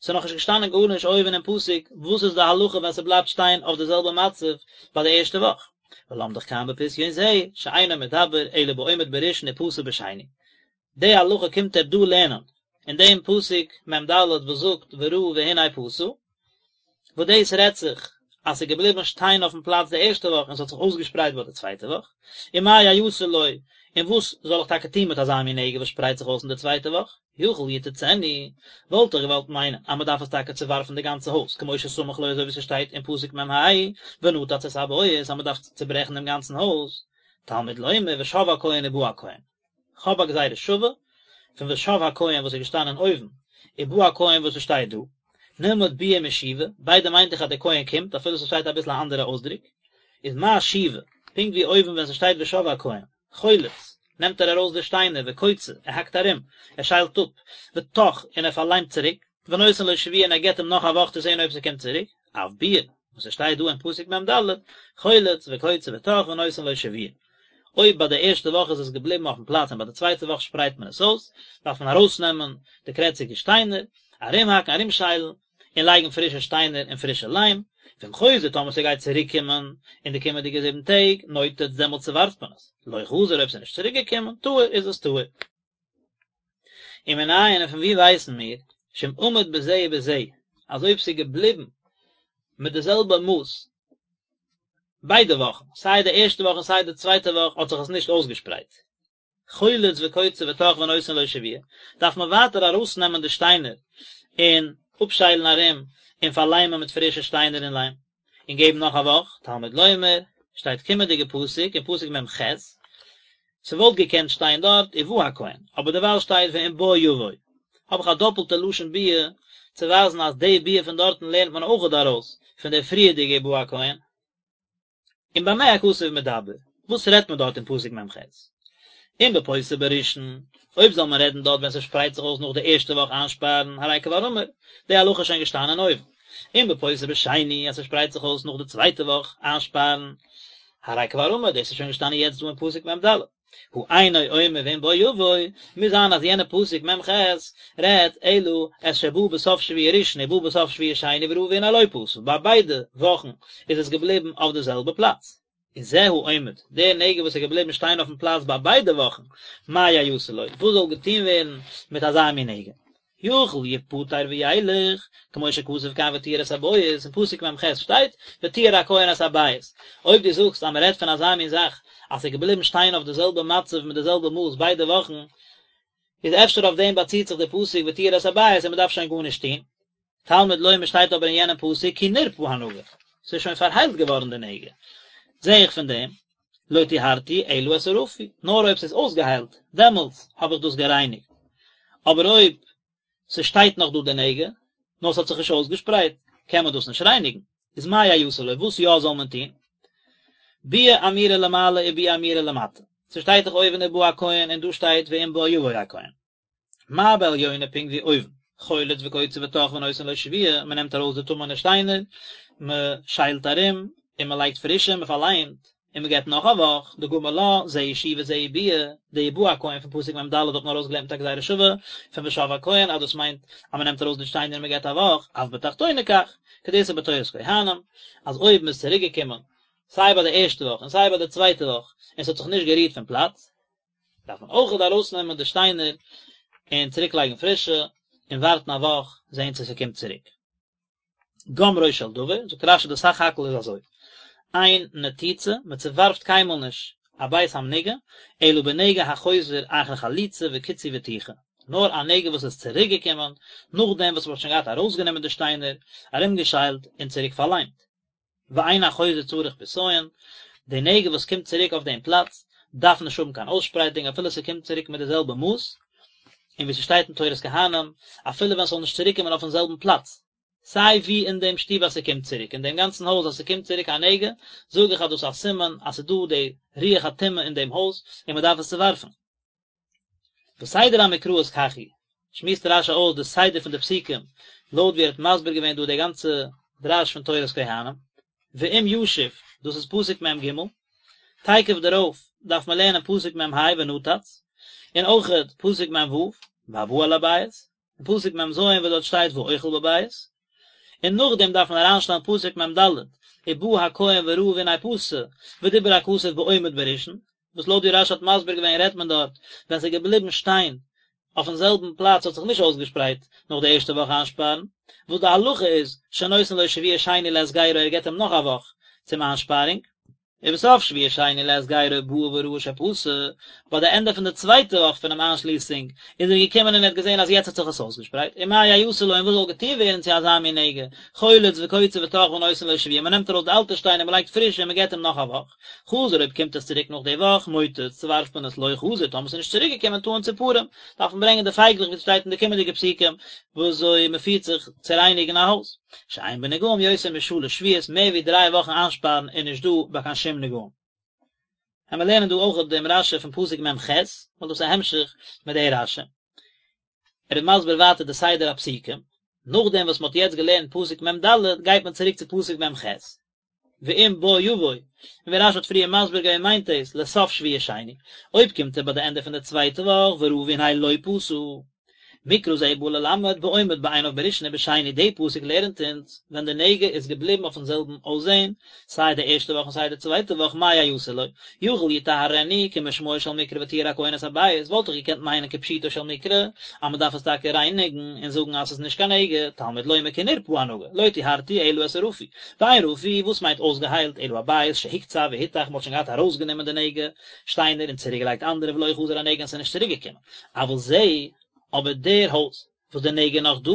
ס'איז נאכנישט געשטאנען גארנישט אויבן אין פסוק וואס איז די הלכה ווען ס'בלייבט שטיין אויף די זעלבע מצב ביי די ערשטע וואך, ולמדך כאן בפשיון זה, שאינו מדבר אלא בעומד בראשון ופשה בשני. די הלכה קומט ער דא לערנען אין דעם פסוק מ"ד וואס זאגט וראה והנה פשה, וואס דאס רעדט זיך. אז ס'איז געבליבן שטיין אויפן פלאץ די ערשטע וואך און ס'האט זיך אויסגעשפרייט ביי די צווייטע וואך, ומה יעשה לו, און וואס זאל איך טאקע טון מיט אזא מין נגע וואס שפרייט זיך אויס אין די צווייטע וואך? יכול יתצנו, וואלט איך געוואלט מיינען אז מ'דארף עס טאקע צעווארפן די גאנצע הויז, כמו שסמך לו אזוי ווי ס'שטייט אין פסוק מ"ה, ונתץ את הבית אז מ'דארף צעברעכן דעם גאנצן הויז, תלמוד לומר ושב הכהן ובא הכהן. כ'האב א גזירה שווה פון ושב הכהן וואס איז געשטאנען אויבן, ובא הכהן וואס עס שטייט דא. נלמד ביאה משיבה, ביידע מיינט איך אז דער כהן קומט, אפילו ס'שטייט אביסל א אנדערע אויסדרוק. איז מה שיבה, פונקט ווי אויבן ווען ס'שטייט ושב הכהן, חולץ, נעמט ער ארויס די שטיינער, וקוצה, ער האקט ארום, ער שיילט אפ, וטח, און ער פארליימט צוריק, ונותן לו שבוע און ער געבט אים נאך א וואך צו זען אויב ס'קומט צוריק, אף ביאה, וואס עס שטייט דא אין פסוק מ"ד, חולץ וקוצה וטח ונותן לו שבוע. אויב ביי די ערשטע וואך איז עס געבליבן אויפן פלאץ און ביי די צווייטע וואך שפרייט מען עס אויס, דארף מען ארויסנעמען די קרעציגע שטיינער, ארומהאקן, ארומשיילן, און לייגן פרישע שטיינער און פרישע ליים, ואם חוזר טאמער ס'גייט צוריק קומען אין די קומענדיגע זיבן טעג, נותץ דעמאלטס צעווארפט מען עס, לא חזר אויב ס'איז נישט צוריק געקומען, טהור איז עס טהור. ומנין און פון וואו ווייסן מיר, שאם עמד בזה ובזה, אז אויב ס'איז געבליבן מיט די זעלבע מאס ביידע וואכן, סיי די ערשטע וואך און סיי די צווייטע וואך האט זיך עס נישט אויסגעשפרייט, חולץ וקוצה וטח ונותן לו שבוע, דארף מען ווייטער ארויסנעמען די שטיינער און אפשיילן ארום און פארליימען מיט פרישע שטיינער און ליים, און געבן נאך א וואך, תלמוד לומר, שטייט קומענדיגע פסוק אין פסוק מ"ח, ס'וואלט געקענט שטיין דארט ובא הכהן, אבער דערווייל שטייט ואם בא יבוא, האב איך א דאפלטע לשון ביאה צו ווייזן אז די ביאה פון דארטן לערנט מען אויכעט ארויס פון די פריערדיגע ובא הכהן. און במה הכתוב מדבר, וואס רעדט מען דארט אין פסוק מ"ח? אם בפוסה בראשון, אויב זאל מען רעדן דארט ווען ס'שפרייט זיך אויס נאך די ערשטע וואך איינשפארן, הרי כבר אמור, די הלכה איז שוין געשטאנען אויבן. אם בפוסה בשני, אז ס'שפרייט זיך אויס נאך די צווייטע וואך איינשפארן, הרי כבר אמור, דאס איז שוין געשטאנען יעצט דא אין פסוק מ"ד. הא אינו אומר ואם בא יבוא, מוז זיין אז יענע פסוק מ"ח רעדט אלא את שבא בסוף שבוע ראשון ובא בסוף שבוע שני וראה והנה לא פשה, ביי ביידע וואכן איז עס געבליבן אויף די זעלבע פלאץ. און זה העומד, דער נגע וואס איז געבליבן שטיין אויפן פלאץ ביי ביידע וואכן, מה יעשה לו, וואס זאל געטון ווערן מיט אזא מין נגע? יכול יפטר וילך, כמו שכתוב כאן וטיהר את הבית, אין פסוק מ"ח שטייט, וטיהר הכהן את הבית. אויב דו זאגסט אז מען רעדט פון אזא מין זאך, אז ס'איז געבליבן שטיין אויף די זעלבע מצב מיט די זעלבע מאס ביידע וואכן, איז אפשר אויף דעם באציט זיך די פסוק וטיהר את הבית און מען דארף שוין גארנישט טון. תלמוד לומר שטייט אבער אין יענעם פסוק כי נרפא הנגע, ס'איז שוין פארהיילט געווארן די נגע. זע איך פון דעם, לא טיהרתי אלא את הרפוי, נאר אויב ס'איז אויסגעהיילט, דעמאלטס האב איך דאס גערייניגט, אבער אויב ס'שטייט נאך דא די נגע, נאר ס'האט זיך נישט אויסגעשפרייט, קען מען דאס נישט רייניגן, איז מה יעשה לו, וואס יא זאל מען טון? ביאה אמורה למעלה וביאה אמורה למטה, ס'שטייט דאך אויבן ובא הכהן און דא שטייט ואם בא יבוא הכהן. מה בעליונה פונקט ווי אויבן, חולץ וקוצה וטח ונותן לו שבוע, מען נעמט ארויס די טמא'נע שטיינער, מען שיילט ארום, און מען לייגט פרישע, מען פארליימט, און מען געבט נאך א וואך, דגמר לה, זו היא שיבה זו היא ביאה, די ובא הכהן פון פסוק מ"ד האט מען ארויסגעלערנט מיט א גזירה שווה פון ושב הכהן אז דאס מיינט אז מען נעמט ארויס די שטיינער און מען געבט א וואך, אף בתחתונה כך, כדאיתא בתורת כהנים, אז אויב מען איז צוריק געקומען סיי ביי די ערשטע וואך און סיי ביי די צווייטע וואך און ס'האט זיך נישט גערירט פון פלאץ, דארף מען אויכעט ארויסנעמען די שטיינער און צוריק לייגן פרישע, און ווארטן א וואך זען צו ס'קומט צוריק. גומרו של דבר, זאגט רש"י די סך הכל איז אזוי, אין נתיצה, מען צעווארפט קיינמאל נישט א בית המנוגע, אלא בנגע החוזר אחר חליצה וקיצוי וטיחה, נאר א נגע וואס איז צוריק געקומען נאכדעם וואס מען האט שוין געהאט ארויסגענומען די שטיינער, ארומגעשיילט און צוריק פארליימט. ואין החוזר צריך פסיון, די נגע וואס קומט צוריק אויף דעם פלאץ דארף נישט האבן קיין אויסשפרייטונג אפילו ס'קומט צוריק מיט די זעלבע מאס, און ווי ס'שטייט אין תורת כהנים, אפילו ווען ס'זאל נישט צוריקקומען אויפן זעלבן פלאץ, סיי ווי אין דעם שטוב אז ס'קומט צוריק, אין דעם גאנצן הויז אז ס'קומט צוריק א נגע, זאג איך אז דאס איז א סימן אז ס'איז דא די רוח הטומאה אין דעם הויז און מ'דארף עס צואווארפן. וסדר המקראות כך הוא, שמועסט רש"י אויס די סדר פון די פסוקים לויט ווי ער האט מסביר געווען דא די גאנצע דרש פון תורת כהנים, ואם ישוב, דאס איז פסוק מ"ג, תיכף דערויף דארף מען לערנען פסוק מ"ה ונתץ, און אויכעט פסוק מ"ו, והבא אל הבית, און פסוק מ"ז וואס דארט שטייט והאוכל בבית, און נאכדעם דארף מען אריינשטעלן פסוק מ"ד, ובא הכהן וראה והנה פשה, ודיבר הכתוב בעומד בראשון, וואס לויט ווי רש"י האט מסביר געווען רעדט מען דארט ווען ס'איז געבליבן שטיין. אויפן זעלבן פלאץ האט זיך נישט אויסגעשפרייט נאך די ערשטע וואך איינשפארן, וואס די הלכה איז שנותן לו שבוע שני להסגרו ער געבט אים נאך א וואך צום איינשפארונג. ובסוף שבוע שני להסגרו בא וראה שפשה, ביי די ענדע פון די צווייטע וואך פונעם איינשליסונג איז ער געקומען און ער האט געזען אז יעצט האט זיך עס אויסגעשפרייט, ומה יעשה לו און וואס זאל געטון ווערן צו אזא מין נגע, חולץ וקוצה וטח ונותן לו שבוע, מען נעמט ארויס די אלטע שטיינער מען לייגט פרישע און מען געבט אים נאך א וואך, חזר אויב קומט עס צוריק נאך די וואך, מוטץ, צוווארפט מען עס לא חזר, טאמער עס איז נישט צוריק געקומען טעון ציפורים, דארף מען ברענגען די פייגלעך ווי עס שטייט אין די קומענדיגע פסוקים ווי אזוי מען פירט זיך צו רייניגן א הויז. שאין בנגעים יותר משלש שבועות, מער ווי דריי וואכן איינשפארן איז נישט דא ביי קיין שום נגעים. וועלן מיר לערנען דא אויך דעם רשי פון פסוק מ ח, ווייל דאס איז א המשך מיט די רשי. ער איז מסביר ווייטער די סדר הפסוקים, נאכדעם וואס מען האט יעצט געלערנט פסוק מ ד, גייט מען צוריק צו פסוק מ ח, ואם בוא יבוא, און ווי רשי האט פריער מסביר געווען מיינט דאס לסוף שבוע שני, אויב קומט ער ביי די ענדע פון די צווייטע וואך וראה והנה לא פשה. מקרא זה בא ללמד בעומד בעיניו בראשון ובשני די פסוק לערנט אונז ווען די נגע איז געבליבן אויפן זעלבן אויסזען סיי די ערשטע וואך און סיי די צווייטע וואך מה יעשה לו יכול יטהרנו כמשמעו של מקרא וטיהר הכהן את הבית וואלט איך געקענט מיינען כפשוטו של מקרא אז מען דארף עס טאקע רייניגן און זאגן אז עס איז נישט קיין נגע תלמוד לומר כי נרפא הנגע לא טיהרתי אלא את הרפוי ואין רפוי וואס מיינט אויסגעהיילט אלא הבית שהוקצה והותך מען האט שוין געהאט ארויסגענומען די נגע שטיינער און צוריקגעלייגט אנדערע ולא חזר הנגע און עס איז נישט צוריקגעקומען אבל זה, אבער דער הויז, וואס דער נגע איז נאך דא,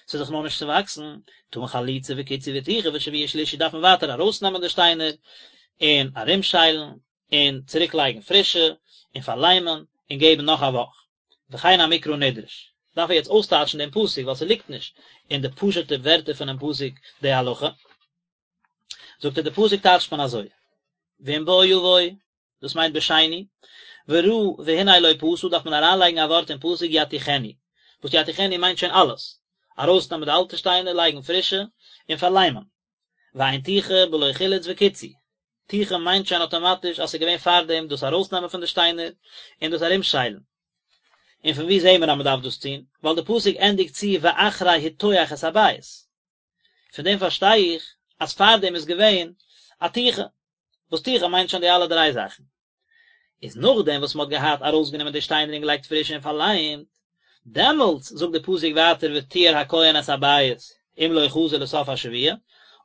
ס'איז זיך נאכנישט צעוואקסן, טעון חליצה וקיצוי וטיחה ושבוע שלישי דארף מען ווייטער ארויסנעמען די שטיינער, און ארומשיילן, און צוריק לייגן פרישע, און פארליימען, און געבן נאך א וואך. וכן המקרא נדרש. דארף ער יעצט אויסטייטשן דעם פסוק, ווייל ס'ליגט נישט אין די פשוט'ע ווערטער פונעם פסוק די הלכה. זאגט ער די פסוק טייטשט מען אזוי, ואם בוא יבוא, דאס מיינט בשני, וראה והנה לא פשה דארף מען אריינלייגן א ווארט אין פסוק יטיחנו, וואס יטיחנו מיינט שוין אלעס, ארויסנעמען די אלטע שטיינער לייגן פרישע, און פארליימען. ואין טיחה בלא חילוץ וקיצוי, טיחה מיינט שוין אטאמאטיש אז ס'איז געווען פארדעם דאס ארויסנעמען פון די שטיינער, און דאס ארומשיילן. און פון וואו זעהן מיר אז מ'דארף דאס טון? ווייל די פסוק ענדיגט צו ואחרי הטוח את הבית. פון דעם פארשטיי איך אז פארדעם איז געווען א טיחה, וואס טיחה מיינט שוין די אלע דריי זאכן. איז נאכדעם וואס מ'האט געהאט ארויסגענומען די שטיינער און געלייגט פרישע און פארליימט, דעמאלטס זאגט די פסוק ווייטער וטיהר הכהן את הבית אם לא חזר לסוף השבוע,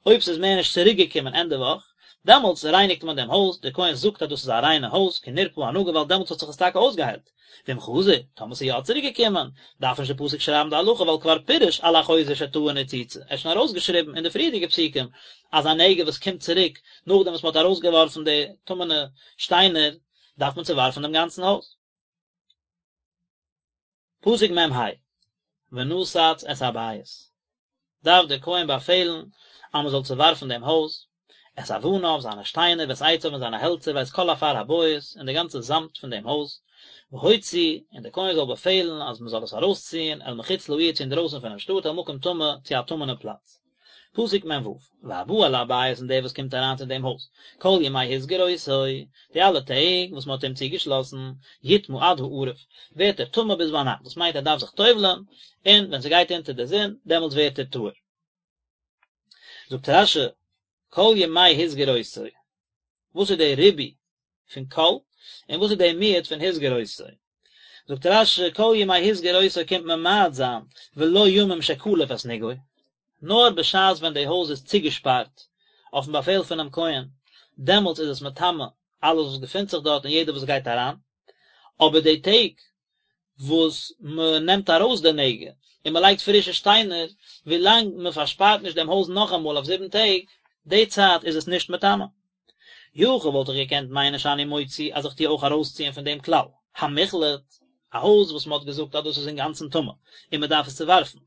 אויב ס'איז מער נישט צוריק געקומען ענדע וואך, דעמאלטס רייניגט מען דעם הויז, דער כהן זאגט אז דאס איז א ריינע הויז, כי נרפא הנגע ווייל דעמאלטס האט זיך עס טאקע אויסגעהיילט. ואם חזר, טאמער ס'איז יא צוריק געקומען, דארף נישט די פסוק שרייבן די הלכה ווייל כבר פירש על החוזר שטעון ניצוצה, ער האט שוין ארויסגעשריבן אין די פריערדיגע פסוקים אז א נגע וואס קומט צוריק נאכדעם וואס מ'האט ארויסגעווארפן די טמא'נע שטיינער דארף מען צעווארפן דעם גאנצן הויז. פסוק מ ה, ונתץ את הבית, דארף דער כהן באפעלן אז מען זאל צעווארפן דעם הויז, את אבניו, זיינע שטיינער, ואת עציו און זיינע העלצער, ואת כל עפר הבית, און די גאנצע זאמד פון דעם הויז, והוציא, און דער כהן זאל באפעלן אז מען זאל עס ארויסציען, אל מחוץ לעיר צו אינדרויסן פונעם שטאט, אל מקום טמא, צו א טמא'נע פלאץ. פסוק מ ו, והבא אל הבית און דער וואס קומט אריין צו דעם הויז, כל ימי הסגיר אותו, די אלע טעג וואס מען האט אים צוגעשלאסן, יטמא עד הערב, ווערט ער טמא ביז ביינאכט, דאס מיינט ער דארף זיך טובל'ען, און ווען ס'גייט אונטער די זון, דעמאלטס ווערט ער טהור. זאגט רש י, כל ימי הסגיר אותו, וואס איז דער ריבוי פון כל, און וואס איז דער מיעוט פון הסגיר אותו? זאגט רש י, כל ימי הסגיר אותו קומט ממעט זיין, ולא ימים שקלף את נגעו, נאר בשעת ווען די הויז איז צוגעשפארט אויפן באפעל פונעם כהן, דעמאלטס איז עס מטמא אלעס וואס געפינט זיך דארט און יעדער וואס גייט אריין, אבער די טעג וואס מען נעמט ארויס די נגע און מען לייגט פרישע שטיינער, ווילאנג מען פארשפארט נישט דעם הויז נאכאמאל אויף זיבן טעג, די צייט איז עס נישט מטמא. יכול וואלט איך געקענט מיינען שאני מוציא אז איך טו אויך ארויסציען פון דעם כלל, המוחלט, א הויז וואס מען האט געזאגט אז דאס איז אינגאנצן טמא און מען דארף עס צעווארפן,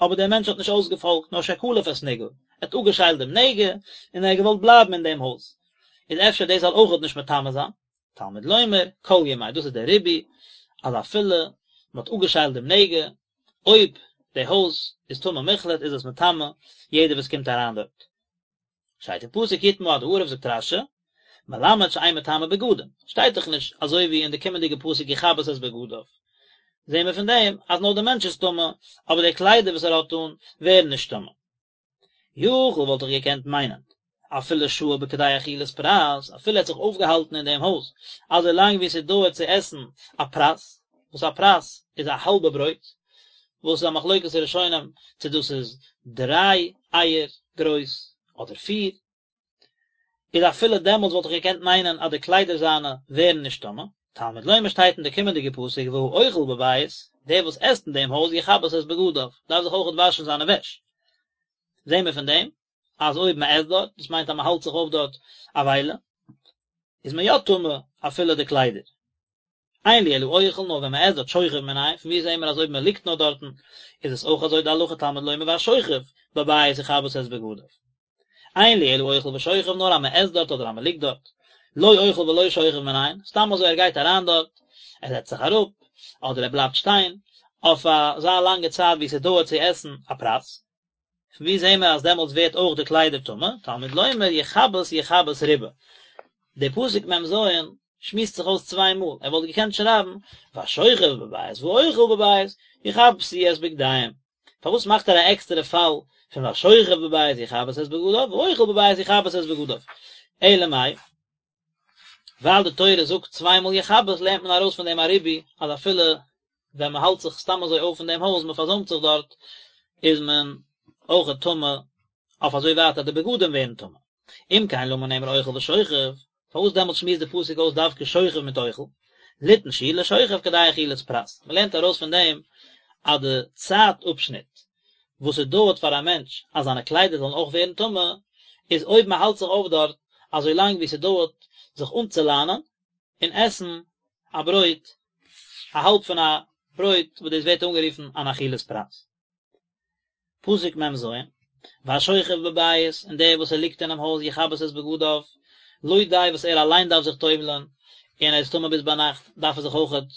אבער דער מענטש האט נישט אויסגעפאלגט נאר שקלף את נגעו, ער האט אפגעשיילט דעם נגע און ער האט געוואלט בלייבן אין דעם הויז, איז אפשר דאס זאל אויכעט נישט מטמא זיין? תלמוד לומר, כל ימי, דאס איז דער ריבוי, אז אפילו מען האט אפגעשיילט דעם נגע, אויב די הויז איז טמא מוחלט איז עס מטמא יעדער וואס קומט אריין דארט. שטייט אין פסוק יטמא עד הערב זאגט רש י, מלמד שאין מטמא בגדים, שטייט דאך נישט אזוי ווי אין די קומענדיגע פסוק יכבס את בגדיו, זעהן מיר פון דעם אז נאר דער מענטש איז טמא, אבער די קליידער וואס ער האט אן ווערן נישט טמא. יכול וואלט איך געקענט מיינען, אפילו שהה בכדי אכילת פרס, אפילו ער האט זיך אויפגעהאלטן אין דעם הויז אזוי לאנג ווי ס'דויערט צו עסן א פרס. וואס א פרס איז א האלבע ברויט, וואס איז א מחלוקת הראשונים צו דאס איז דריי אייער גרויס אדער פיר, איז אפילו דעמאלטס וואלט איך געקענט מיינען אז די קליידער זיינע ווערן נישט טמא, תלמוד לומר שטייט אין די קומענדיגע פסוק והאוכל בבית, דער וואס עסט אין דעם הויז יכבס את בגדיו, דארף זיך אויכעט וואשן זיינע וועש. זעהן מיר פון דעם אז אויב מען עסט דארט, דאס מיינט אז מען האלט זיך אויף דארט א וויילע, איז מען יא טמא אפילו די קליידער. אין לי אלא אוכל נאר ווען מען עסט דארט שוכב מנין, פון ווי זעהן מיר אז אויב מען ליגט נאר דארטן איז עס אויך אזוי די הלכה תלמוד לומר והשוכב בבית יכבס את בגדיו. אין לי אלא אוכל ושוכב נאר אז מען עסט דארט אדער אז מען ליגט דארט. לא אוכל ולא שוכב מנין, סתם אזוי ער גייט אריין דארט, ער זעצט זיך אראפ, אדער ער בלייבט שטיין, אויף אזא לאנגע צייט ווי ס'דויערט צו עסן א פרס. פון ווי זעהן מיר אז דעמאלטס ווערט אויך די קליידער טמא? תלמוד לומר יכבס יכבס ריבה. די פסוק מ"ז שמועסט זיך אויס צוויי מאל, ער וואלט געקענט שרייבן והשוכב בבית והאוכל בבית יכבסו את בגדיהם. פארוואס מאכט ער א עקסטערע פאל פון והשוכב בבית יכבס את בגדיו והאוכל בבית יכבס את בגדיו? אלא מאי, ווייל די תורה זאגט צוויי מאל יכבס לערנט מען ארויס פון דעם א ריבוי אז אפילו ווען מען האלט זיך סתם אזוי אויף אין דעם הויז, מען פארזוימט זיך דארט, איז מען אויכעט טמא אויף אזוי ווייט אז די בגדים ווערן טמא. אם כן למה נאמר אוכל ושוכב, פארוואס דעמאלטס שמועסט די פסוק אויס דווקא שוכב מיט אוכל? ליתן שיעור לשוכב כדי אכילת פרס, מען לערנט ארויס פון דעם אז די צייט אפשניט וואס עס דויערט פאר א מענטש אז זיינע קליידער זאלן אויך ווערן טמא, איז אויב מען האלט זיך אויף דארט אזוי לאנג ווי ס'דויערט זיך אנצולאנען און עסן א ברויט, א האלב פון א ברויט וואס דאס ווערט אנגערופן אן אכילת פרס. פסוק מ"ז, והשוכב בבית, און דער וואס ער ליגט אינעם הויז יכבס את בגדיו, לא די וואס ער אליין דארף זיך טובל'ען, און ער איז טמא ביז ביינאכט, דארף ער זיך אויכעט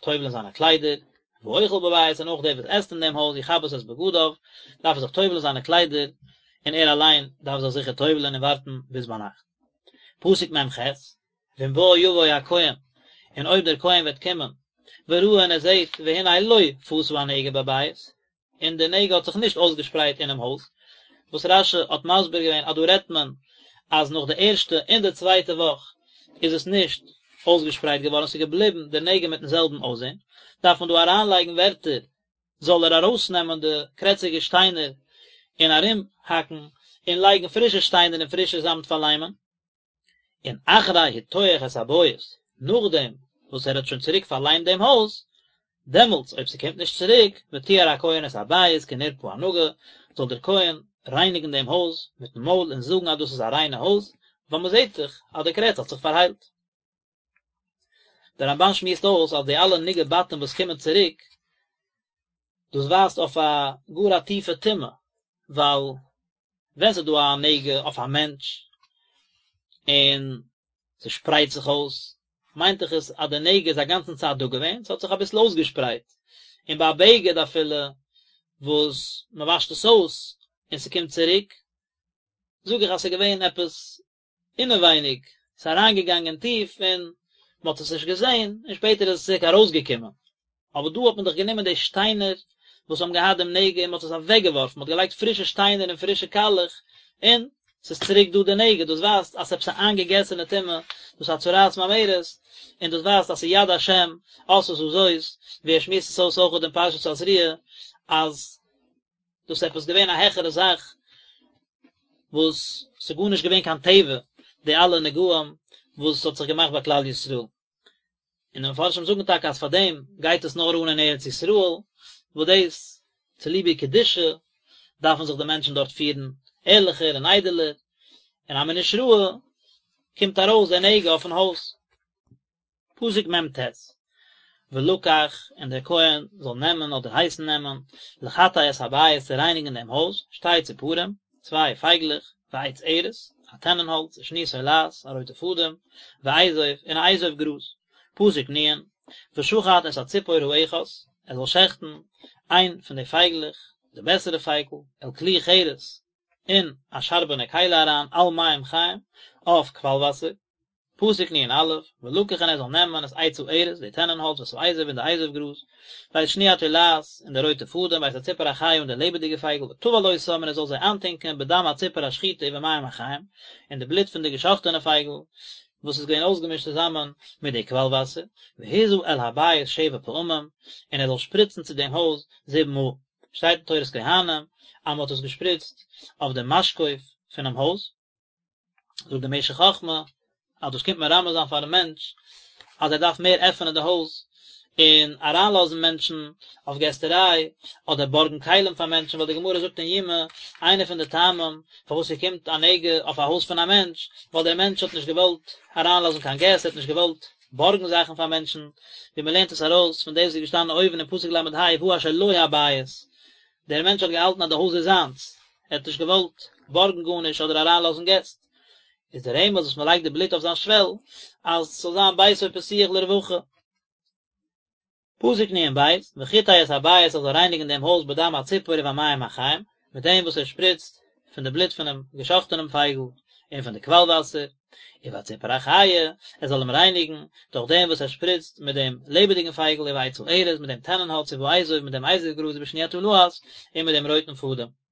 טובל'ען זיינע קליידער, והאוכל בבית, און אויך דער וואס עסט אין דעם הויז יכבס את בגדיו, דארף ער זיך טובל'ען זיינע קליידער, און ער אליין דארף זיך זיכער טובל'ען און ווארטן ביז ביינאכט. פסוק מ"ח, ואם בא יבוא הכהן, און אויב דער כהן וועט קומען, וראה און ער זעט, והנה לא פשה הנגע בבית, און די נגע האט זיך נישט אויסגעשפרייט אינעם הויז, וואס רש"י האט מסביר געווען אז דא רעדט מען אז נאך די ערשטע און די צווייטע וואך איז עס נישט אויסגעשפרייט געווארן, ס'איז געבליבן די נגע מיטן זעלבן אויסזען, דארף מען דא אריינלייגן ווערטער זאל ער ארויסנעמען די קרעציגע שטיינער און ארומהאקן און לייגן פרישע שטיינער און פרישע זאמד פארליימען. און אחרי הטוח את הבית, נאכדעם וואס ער האט שוין צוריק פארליימט דעם הויז, דעמאלטס אויב ס'קומט נישט צוריק, וטהר הכהן את הבית כי נרפא הנגע, זאל דער כהן רייניגן דעם הויז מיטן מויל און זאגן אז דאס איז א ריינע הויז, ווייל מ'זעט דאך אז די קרעץ האט זיך פארהיילט. דער רמב"ן שמועסט אויס אז די אלע נגעי בתים וואס קומען צוריק, דאס ווייזט אויף א גאר א טיפע טומאה, ווייל ווען ס'איז דא א נגע אויף א מענטש און ס'שפרייט זיך אויס, מיינט דאך עס אז די נגע איז א גאנצן צייט דא געווען, ס'האט זיך אביסל אויסגעשפרייט, און ביי א בגד אפילו וואס מ'וואשט עס אויס און ס'קומט צוריק, זאג איך אז ס'איז געווען עפעס אינעווייניג, ס'איז אריינגעגאנגען טיף און מ'האט עס נישט געזען, און שפעטער איז עס צוריק ארויסגעקומען. אבער דא האט מען דאך גענומען די שטיינער וואס האבן געהאט דעם נגע און מ'האט עס אוועקגעווארפן, מ'האט געלייגט פרישע שטיינער און פרישע קאלעך, און ס'איז צוריק דא די נגע, דאס ווייזט אז ס'איז עפעס א איינגעגעסענע טומאה, דאס איז א צרעת ממארת, און דאס ווייזט אז ס'איז יד השם עשתה זאת, ווי ער שמועסט עס אויס אויך אין פרשת תזריע, אז דאס איז עפעס געווען א העכערע זאך וואס ס'איז גארנישט געווען קיין טבע די אלע נגעים וואס האט זיך געמאכט ביי כלל ישראל און די מפרשים זאגן טאקע אז פאר דעם גייט עס נאר אן אין ארץ ישראל וואס דאס צוליב איר קדושה דארפן זיך די מענטשן דארט פירן ערליכער און איידעלער און אז מ'איז נישט ראוי קומט ארויס די נגע אויפן הויז. פסוק מ"ט, ולקח, און דער כהן זאל נעמען אדער הייסן נעמען, לחטא את הבית צו רייניגן דעם הויז, שתי ציפורים, צוויי פייגלעך, ועץ ארז, א טענענהאלץ, ושני תולעת, א רויטע פאדעם, ואזוב, און א אזוב גראז. פסוק נ', ושחט את הציפור האחת, ער זאל שעכטן איין פון די פייגלעך, די בעסערע פייגל, אל כלי חרס, אין א שארבענע כלי אריין, על מים חיים, אויף קוואל וואסער. פסוק נ"א, ולקח און ער זאל נעמען את עץ הארז, די טענענהאלץ ואת האזוב און די אזוב גראז, ואת שני התולעת און די רויטע פאדעם, ואת הציפור החיה און די לעבעדיגע פייגל, וטבל אותם און ער זאל זיי איינטונקען בדם הציפור השחוטה ובמים החיים, אין די בלוט פון די געשאכטענע פייגל. וואס איז געווען אויסגעמישט צוזאמען מיט די קוואל וואסער, והזה אל הבית שבע פעמים, און ער זאל שפריצן צו דעם הויז זיבן מאל. שטייט אין תורת כהנים אז מען האט עס געשפריצט אויף דעם משקוף פונעם הויז. זאגט דער משך חכמה אז דאס קומט מרמז זיין פארן מענטש אז ער דארף מער עפענען די הויז און אריינלאזן מענטשן אויף געסטעריי אדער בארגן כלים פאר מענטשן ווייל די גמרא זאגט אין יומא איינע פון די טעמים פארוואס ס'קומט א נגע אויף א הויז פון א מענטש ווייל דער מענטש האט נישט געוואלט אריינלאזן קיין געסט ער האט נישט געוואלט בארגן זאכן פאר מענטשן ווי מ'לערנט עס ארויס פון דאס וואס איז געשטאנען אויבן אין פסוק ל"ה ובא אשר לו הבית דער מענטש האט געהאלטן אז די הויז איז זיינס, ער האט נישט געוואלט בארגן גארנישט אדער אריינלאזן געסט, איז דער רמז וואס מען לייגט די בלוט אויף זיין שוועל, אז ס'זאל זיין ביתו פתוח לרווחה. פסוק נ"ב, וחטא את הבית ער זאל רייניגן דעם הויז בדם הציפור ובמים החיים, מיט דעם וואס ער שפריצט פון די בלוט פונעם געשאכטענעם פייגל און פון די קוואל וואסער, ובציפור החיה, ער זאל אים רייניגן, דורך דעם וואס ער שפריצט מיט דעם לעבעדיגן פייגל ובעץ הארז, מיט דעם טענענהאלץ ובאזוב, מיט דעם אזוב גראז ובשני התולעת, און מיט דעם רויטן פאדעם.